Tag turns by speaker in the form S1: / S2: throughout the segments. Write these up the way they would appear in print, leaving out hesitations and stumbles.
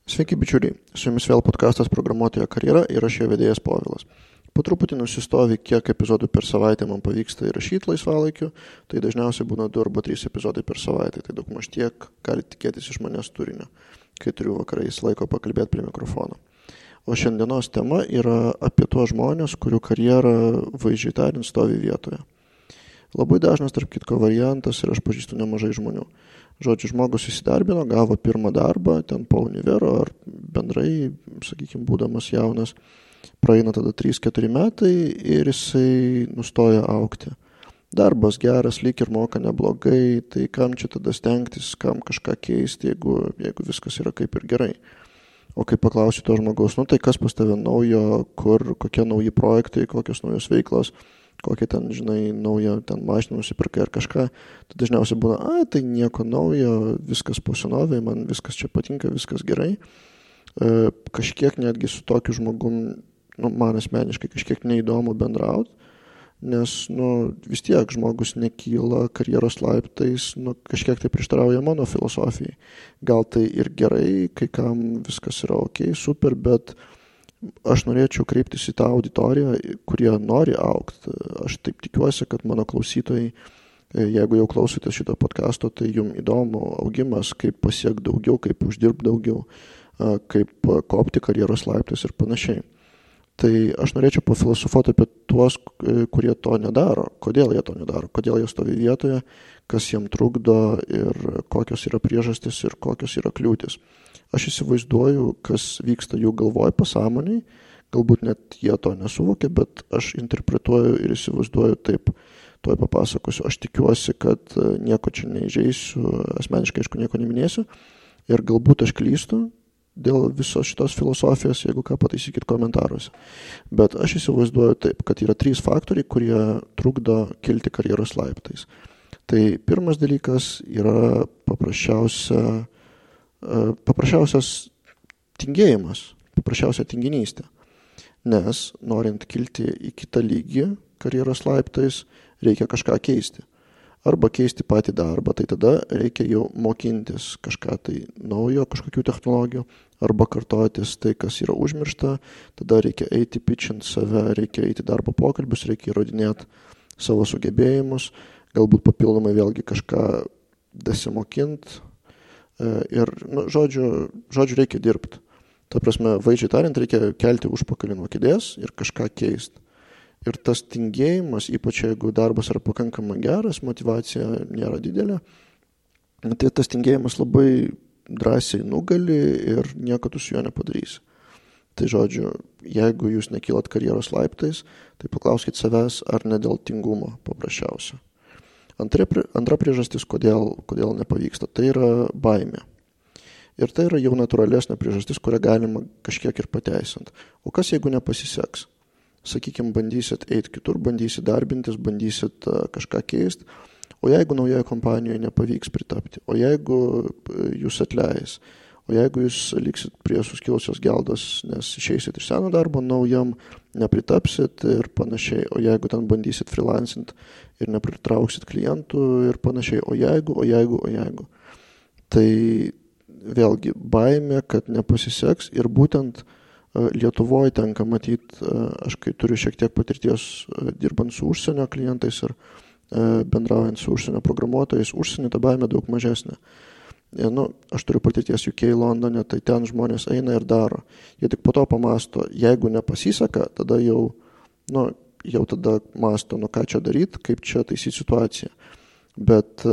S1: Sveiki bičiuliai, su jumis vėl podkastas Programuotojo karjera ir aš jo vedėjas Povilas. Po truputį nusistovi, kiek epizodų per savaitę man pavyksta įrašyti laisvalaikiu, tai dažniausiai būna 2 arba 3 epizodai per savaitę, tai daugmaž tiek gali tikėtis iš manęs turinio, kai turiu vakarais laiko pakalbėti prie mikrofono. O šiandienos tema yra apie tuos žmonės, kurių karjera vaizdžiai tariant stovi vietoje. Labai dažnas, tarp kitko, variantas ir aš pažįstu nemažai žmonių. Žodžiu, žmogus įsidarbino, gavo pirmą darbą, ten po univero ar bendrai, sakykime, būdamas jaunas, praeina tada 3-4 metai ir jisai nustoja augti. Darbas geras, lyg ir moka neblogai, tai kam čia tada stengtis, kam kažką keisti, jeigu viskas yra kaip ir gerai. O kai paklausiu to žmogaus, tai kas pas tave naujo, kokie nauji projektai, kokios naujos veiklos, kokią ten, naują ten mašiną nusipirkai ar kažką, tai dažniausiai būna, tai nieko naujo, viskas po senovei, man viskas čia patinka, viskas gerai. Kažkiek netgi su tokiu žmogum, man asmeniškai kažkiek neįdomu bendrauti, nes, vis tiek žmogus nekyla karjeros laiptais, kažkiek tai prieštarauja mano filosofijai. Gal tai ir gerai, kai kam viskas yra ok, super, bet aš norėčiau kreiptis į tą auditoriją, kurie nori augti. Aš taip tikiuosi, kad mano klausytojai, jeigu jau klausotės šito podcasto, tai jums įdomu augimas, kaip pasiekti daugiau, kaip uždirbti daugiau, kaip kopti karjeros laiptais ir panašiai. Tai aš norėčiau pafilosofuoti apie tuos, kurie to nedaro. Kodėl jie to nedaro? Kodėl jie stovi vietoje, kas jiem trukdo ir kokios yra priežastys ir kokios yra kliūtis. Aš įsivaizduoju, kas vyksta jų galvoj pasąmoniai, galbūt net jie to nesuvokia, bet aš interpretuoju ir įsivaizduoju taip, tuoj papasakosiu. Aš tikiuosi, kad nieko čia neįžeisiu, asmeniškai aišku nieko neminėsiu ir galbūt aš klystu dėl visos šitos filosofijos, jeigu ką pataisykit komentaruose. Bet aš įsivaizduoju taip, kad yra 3 faktoriai, kurie trukdo kilti karjeros laiptais. Tai pirmas dalykas yra paprasčiausias tingėjimas, paprasčiausia tinginystė. Nes norint kilti į kitą lygį karjeros laiptais, reikia kažką keisti. Arba keisti patį darbą, tai tada reikia jau mokintis kažką tai naujo, kažkokių technologijų, arba kartotis tai, kas yra užmiršta, tada reikia eiti pitchint save, reikia eiti darbo pokalbius, reikia įrodinėti savo sugebėjimus, galbūt papildomai vėlgi kažką dasimokint ir, žodžiu, reikia dirbti. Ta prasme, vaizdžiai tariant, reikia kelti užpakalį nuo kėdės ir kažką keisti. Ir tas tingėjimas, ypač jeigu darbas yra pakankamai geras, motyvacija nėra didelė, tai tas tingėjimas labai drąsiai nugali ir nieko tu su juo nepadarysi. Tai žodžiu, jeigu jūs nekylat karjeros laiptais, tai paklauskit savęs, ar ne dėl tingumo paprasčiausia. Antra priežastis, kodėl nepavyksta, tai yra baimė. Ir tai yra jau natūralesnė priežastis, kurią galima kažkiek ir pateisinti. O kas jeigu nepasiseks? Sakykime, bandysit eiti kitur, bandysit darbintis, bandysit kažką keisti, o jeigu naujoje kompanijoje nepavyks pritapti, o jeigu jūs atleis, o jeigu jūs liksit prie suskilusios geldos, nes išeisit iš seno darbo, naujam nepritapsit ir panašiai, o jeigu ten bandysit freelancint ir nepritrauksit klientų ir panašiai, o jeigu. Tai vėlgi baimė, kad nepasiseks ir būtent Lietuvoje tenka matyti, aš kai turiu šiek tiek patirties dirbant su užsienio klientais ir bendraujant su užsienio programuotojais, užsienio ta baimė daug mažesnė. Aš turiu patirties UK, Londone, tai ten žmonės eina ir daro. Jie tik po to pamasto, jeigu nepasiseka, tada jau tada masto, ką čia daryti, kaip čia taisyti situaciją. Bet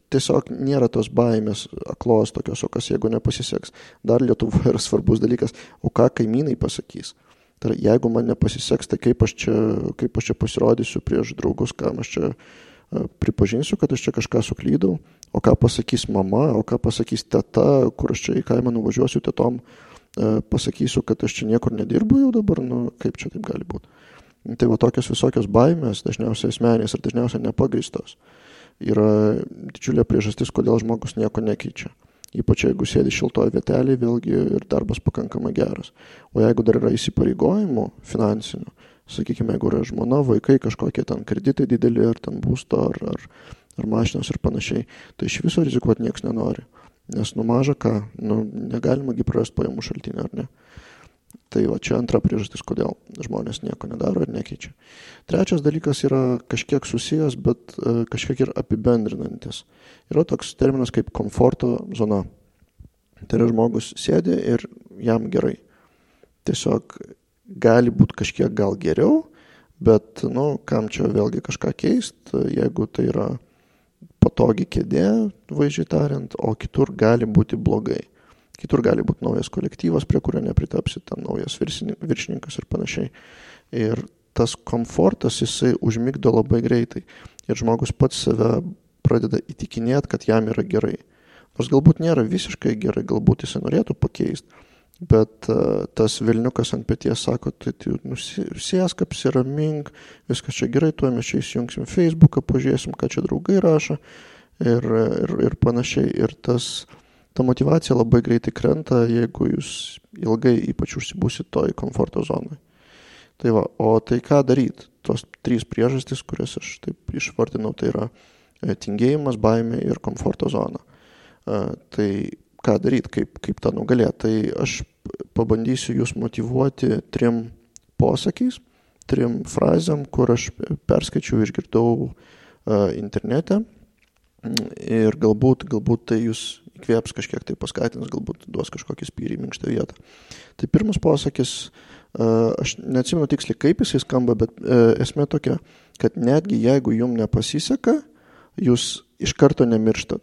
S1: tiesiog nėra tos baimės aklos tokios, o kas jeigu nepasiseks. Dar Lietuvoje yra svarbus dalykas, o ką kaimynai pasakys. Tai jeigu man nepasiseks, tai kaip aš čia pasirodysiu prieš draugus, kam aš čia pripažinsiu, kad aš čia kažką suklydau, o ką pasakys mama, o ką pasakys teta, kur aš čia į kaimą nuvažiuosiu tetom, pasakysiu, kad aš čia niekur nedirbu jau dabar, kaip čia taip gali būti. Tai va tokios visokios baimės, dažniausiai asmenės ir dažniausiai nepagrįstos, yra didžiulė priežastis, kodėl žmogus nieko nekeičia. Ypač jeigu sėdi šiltoje vietelėje, vėlgi ir darbas pakankamai geras. O jeigu dar yra įsipareigojimų finansinių, sakykime, jeigu yra žmona, vaikai, kažkokie ten kreditai dideli, ar ten būsto, ar mašinos ir panašiai, tai iš viso rizikuoti niekas nenori. Nes maža ką, negalima prarasti pajamų šaltinį, ar ne? Tai va, čia antra priežastis, kodėl žmonės nieko nedaro ir nekeičia. Trečias dalykas yra kažkiek susijęs, bet kažkiek ir apibendrinantis. Yra toks terminas kaip komforto zona. Tai yra žmogus sėdi ir jam gerai. Tiesiog gali būti kažkiek gal geriau, bet, kam čia vėlgi kažką keist, jeigu tai yra patogi kėdė, vaizdžiai tariant, o kitur gali būti blogai. Kitur gali būti naujas kolektyvas, prie kurio nepritapsi, ten naujas viršininkas ir panašiai. Ir tas komfortas, jisai užmigdo labai greitai. Ir žmogus pats save pradeda įtikinėti, kad jam yra gerai. Nors galbūt nėra visiškai gerai, galbūt jisai norėtų pakeisti, bet tas vilniukas ant peties sako, tai sėsk, apsiramink, viskas čia gerai, tuo mes čia įsijungsim Facebooką, pažiūrėsim, ką čia draugai rašo ir panašiai. Ir ta motyvacija labai greitai krenta, jeigu jūs ilgai ypač užsibūsit toj komforto zonai. Tai va, o tai ką daryti? Tos 3 priežastys, kurias aš taip išvardinau, tai yra tingėjimas, baimė ir komforto zona. Tai ką daryti, kaip tą nugalėti? Tai aš pabandysiu jūs motyvuoti 3 posakiais, 3 frazėm, kur aš perskaičiau, išgirdau internete. Ir galbūt tai jūs įkvėps kažkiek tai paskatins, galbūt duos kažkokį spyrį į minkštą vietą. Tai pirmas posakis, aš neatsimenu tiksliai kaip jisai skamba, bet esmė tokia, kad netgi jeigu jums nepasiseka, jūs iš karto nemirštat.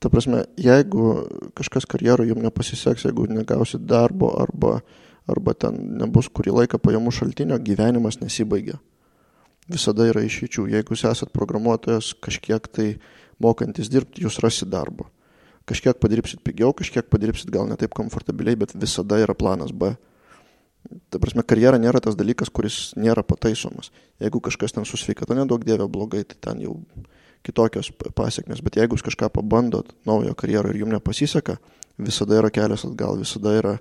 S1: Ta prasme, jeigu kažkas karjeroje jums nepasiseks, jeigu negausit darbo arba ten nebus kurį laiką pajamų šaltinio, gyvenimas nesibaigia. Visada yra išeičių. Jeigu jūs esat programuotojas, kažkiek tai mokantis dirbti, jūs rasit darbo. Kažkiek padirbsit pigiau, kažkiek padirbsit gal ne taip komfortabiliai, bet visada yra planas B. Ta prasme, karjera nėra tas dalykas, kuris nėra pataisomas. Jeigu kažkas ten su sveikata nedaug dievė blogai, tai ten jau kitokios pasiekmes. Bet jeigu jūs kažką pabandot naujo karjerą ir jums nepasiseka, visada yra kelias atgal, visada yra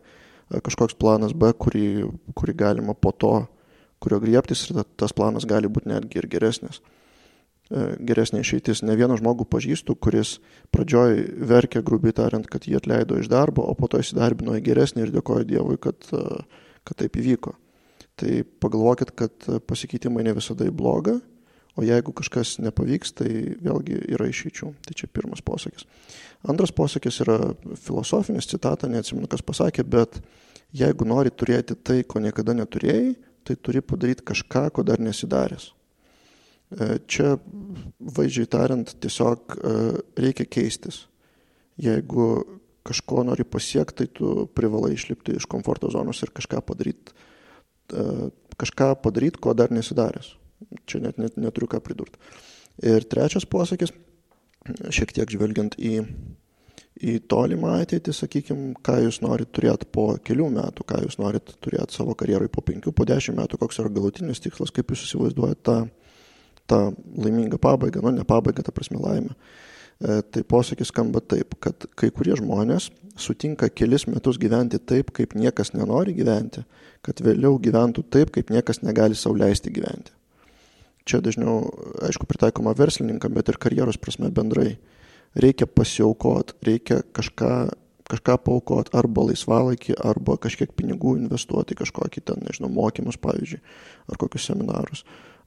S1: kažkoks planas B, kurį galima po to, kurio griebtis, ir tas planas gali būti netgi ir geresnis. Geresnė išeitis. Ne vieną žmogų pažįstu, kuris pradžioj verkė, grubiai tariant, kad jį atleido iš darbo, o po to įsidarbino į geresnį ir dėkoja Dievui, kad taip įvyko. Tai pagalvokit, kad pasikeitimai ne visada į blogą, o jeigu kažkas nepavyks, tai vėlgi yra išeičių. Tai čia pirmas posakis. Antras posakis yra filosofinis, citata, neatsimenu, kas pasakė, bet jeigu nori turėti tai, ko niekada neturėjai, tai turi padaryti kažką, ko dar nesidaręs. Čia, vaizdžiai tariant, tiesiog reikia keistis. Jeigu kažko nori pasiekti, tai tu privalai išlipti iš komforto zonos ir kažką padaryti, ko dar nesidaręs. Čia net neturiu ką pridurti. Ir trečias posakis, šiek tiek žvelgiant į tolimą ateitį, sakykime, ką jūs norit turėti po kelių metų, ką jūs norit turėti savo karjeroj po 5, po 10 metų, koks yra galutinis tikslas, kaip jūs įsivaizduojate tą laimingą pabaigą, ne pabaigą, ta prasme laimę. Tai posakis skamba taip, kad kai kurie žmonės sutinka kelis metus gyventi taip, kaip niekas nenori gyventi, kad vėliau gyventų taip, kaip niekas negali sau leisti gyventi. Čia dažniau, aišku, pritaikoma verslininkam, bet ir karjeros prasme bendrai. Reikia pasiaukoti, reikia kažką paaukoti, arba laisvalaikį, arba kažkiek pinigų investuoti, kažkokį ten, mokymus, pavyzdžiui, ar kokius seminarus.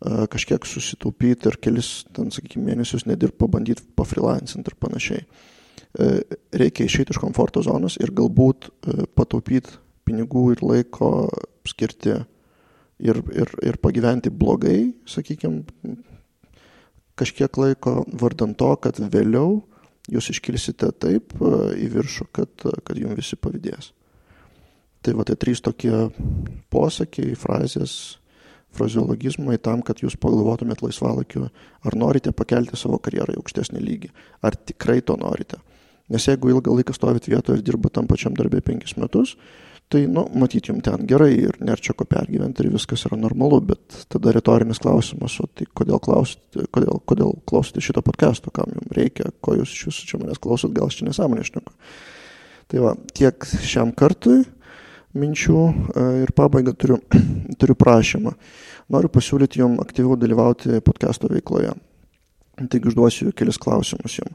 S1: Kažkiek susitaupyti ir kelis, ten, sakykime, mėnesius nedirbt, pabandyti pafreelancinti ir panašiai. Reikia išeiti iš komforto zonos ir galbūt pataupyti pinigų ir laiko skirti ir pagyventi blogai, sakykime, kažkiek laiko vardan to, kad vėliau jūs iškilsite taip į viršų, kad jums visi pavydės. Tai va, tai 3 tokie posakiai, frazės, frazeologizmai tam, kad jūs pagalvotumėt laisvalaikiu, ar norite pakelti savo karjerą į aukštesnį lygį, ar tikrai to norite. Nes jeigu ilgą laiką stovit vietoje ir dirba tam pačiam darbė 5 metus, tai, matyt, jums ten gerai ir nėra čia ko pergyventi ir viskas yra normalu, bet tada retorinis klausimas, o tai kodėl klausote šito podcasto, kam jums reikia, ko jūs iš jūsų čia manęs klausot, gal aš čia nesąmonę šneku. Tai va, tiek šiam kartui minčių ir pabaigą turiu prašymą. Noriu pasiūlyti jums aktyviau dalyvauti podcasto veikloje. Taigi užduosiu kelis klausimus jums.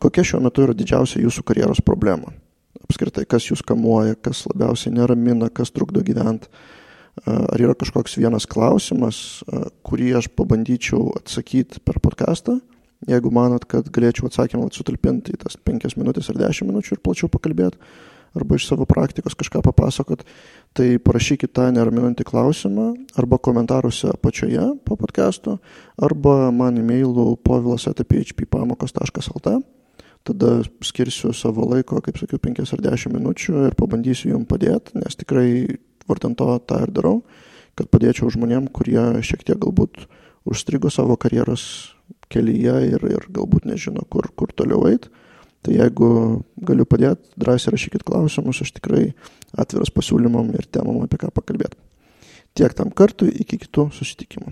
S1: Kokia šiuo metu yra didžiausia jūsų karjeros problema? Apskritai, kas jūs kamuoja, kas labiausiai neramina, kas trukdo gyventi? Ar yra kažkoks vienas klausimas, kurį aš pabandyčiau atsakyti per podcastą? Jeigu manot, kad galėčiau atsakymą sutalpinti į tas 5 minutės ar 10 minučių ir plačiau pakalbėti, arba iš savo praktikos kažką papasakot, tai parašykit tą neraminantį klausimą arba komentaruose apačioje po podcasto, arba man e-mailu povilas@phppamokos.lt. Tada skirsiu savo laiko, kaip sakiau, 5 ar 10 minučių ir pabandysiu jums padėti, nes tikrai vardan to tą ir darau, kad padėčiau žmonėm, kurie šiek tiek galbūt užstrigo savo karjeros kelyje ir galbūt nežino, kur toliau eiti. Tai jeigu galiu padėti, drąsiai rašykit klausimus, aš tikrai atviras pasiūlymam ir temam, apie ką pakalbėti. Tiek tam kartui, iki kitų susitikimų.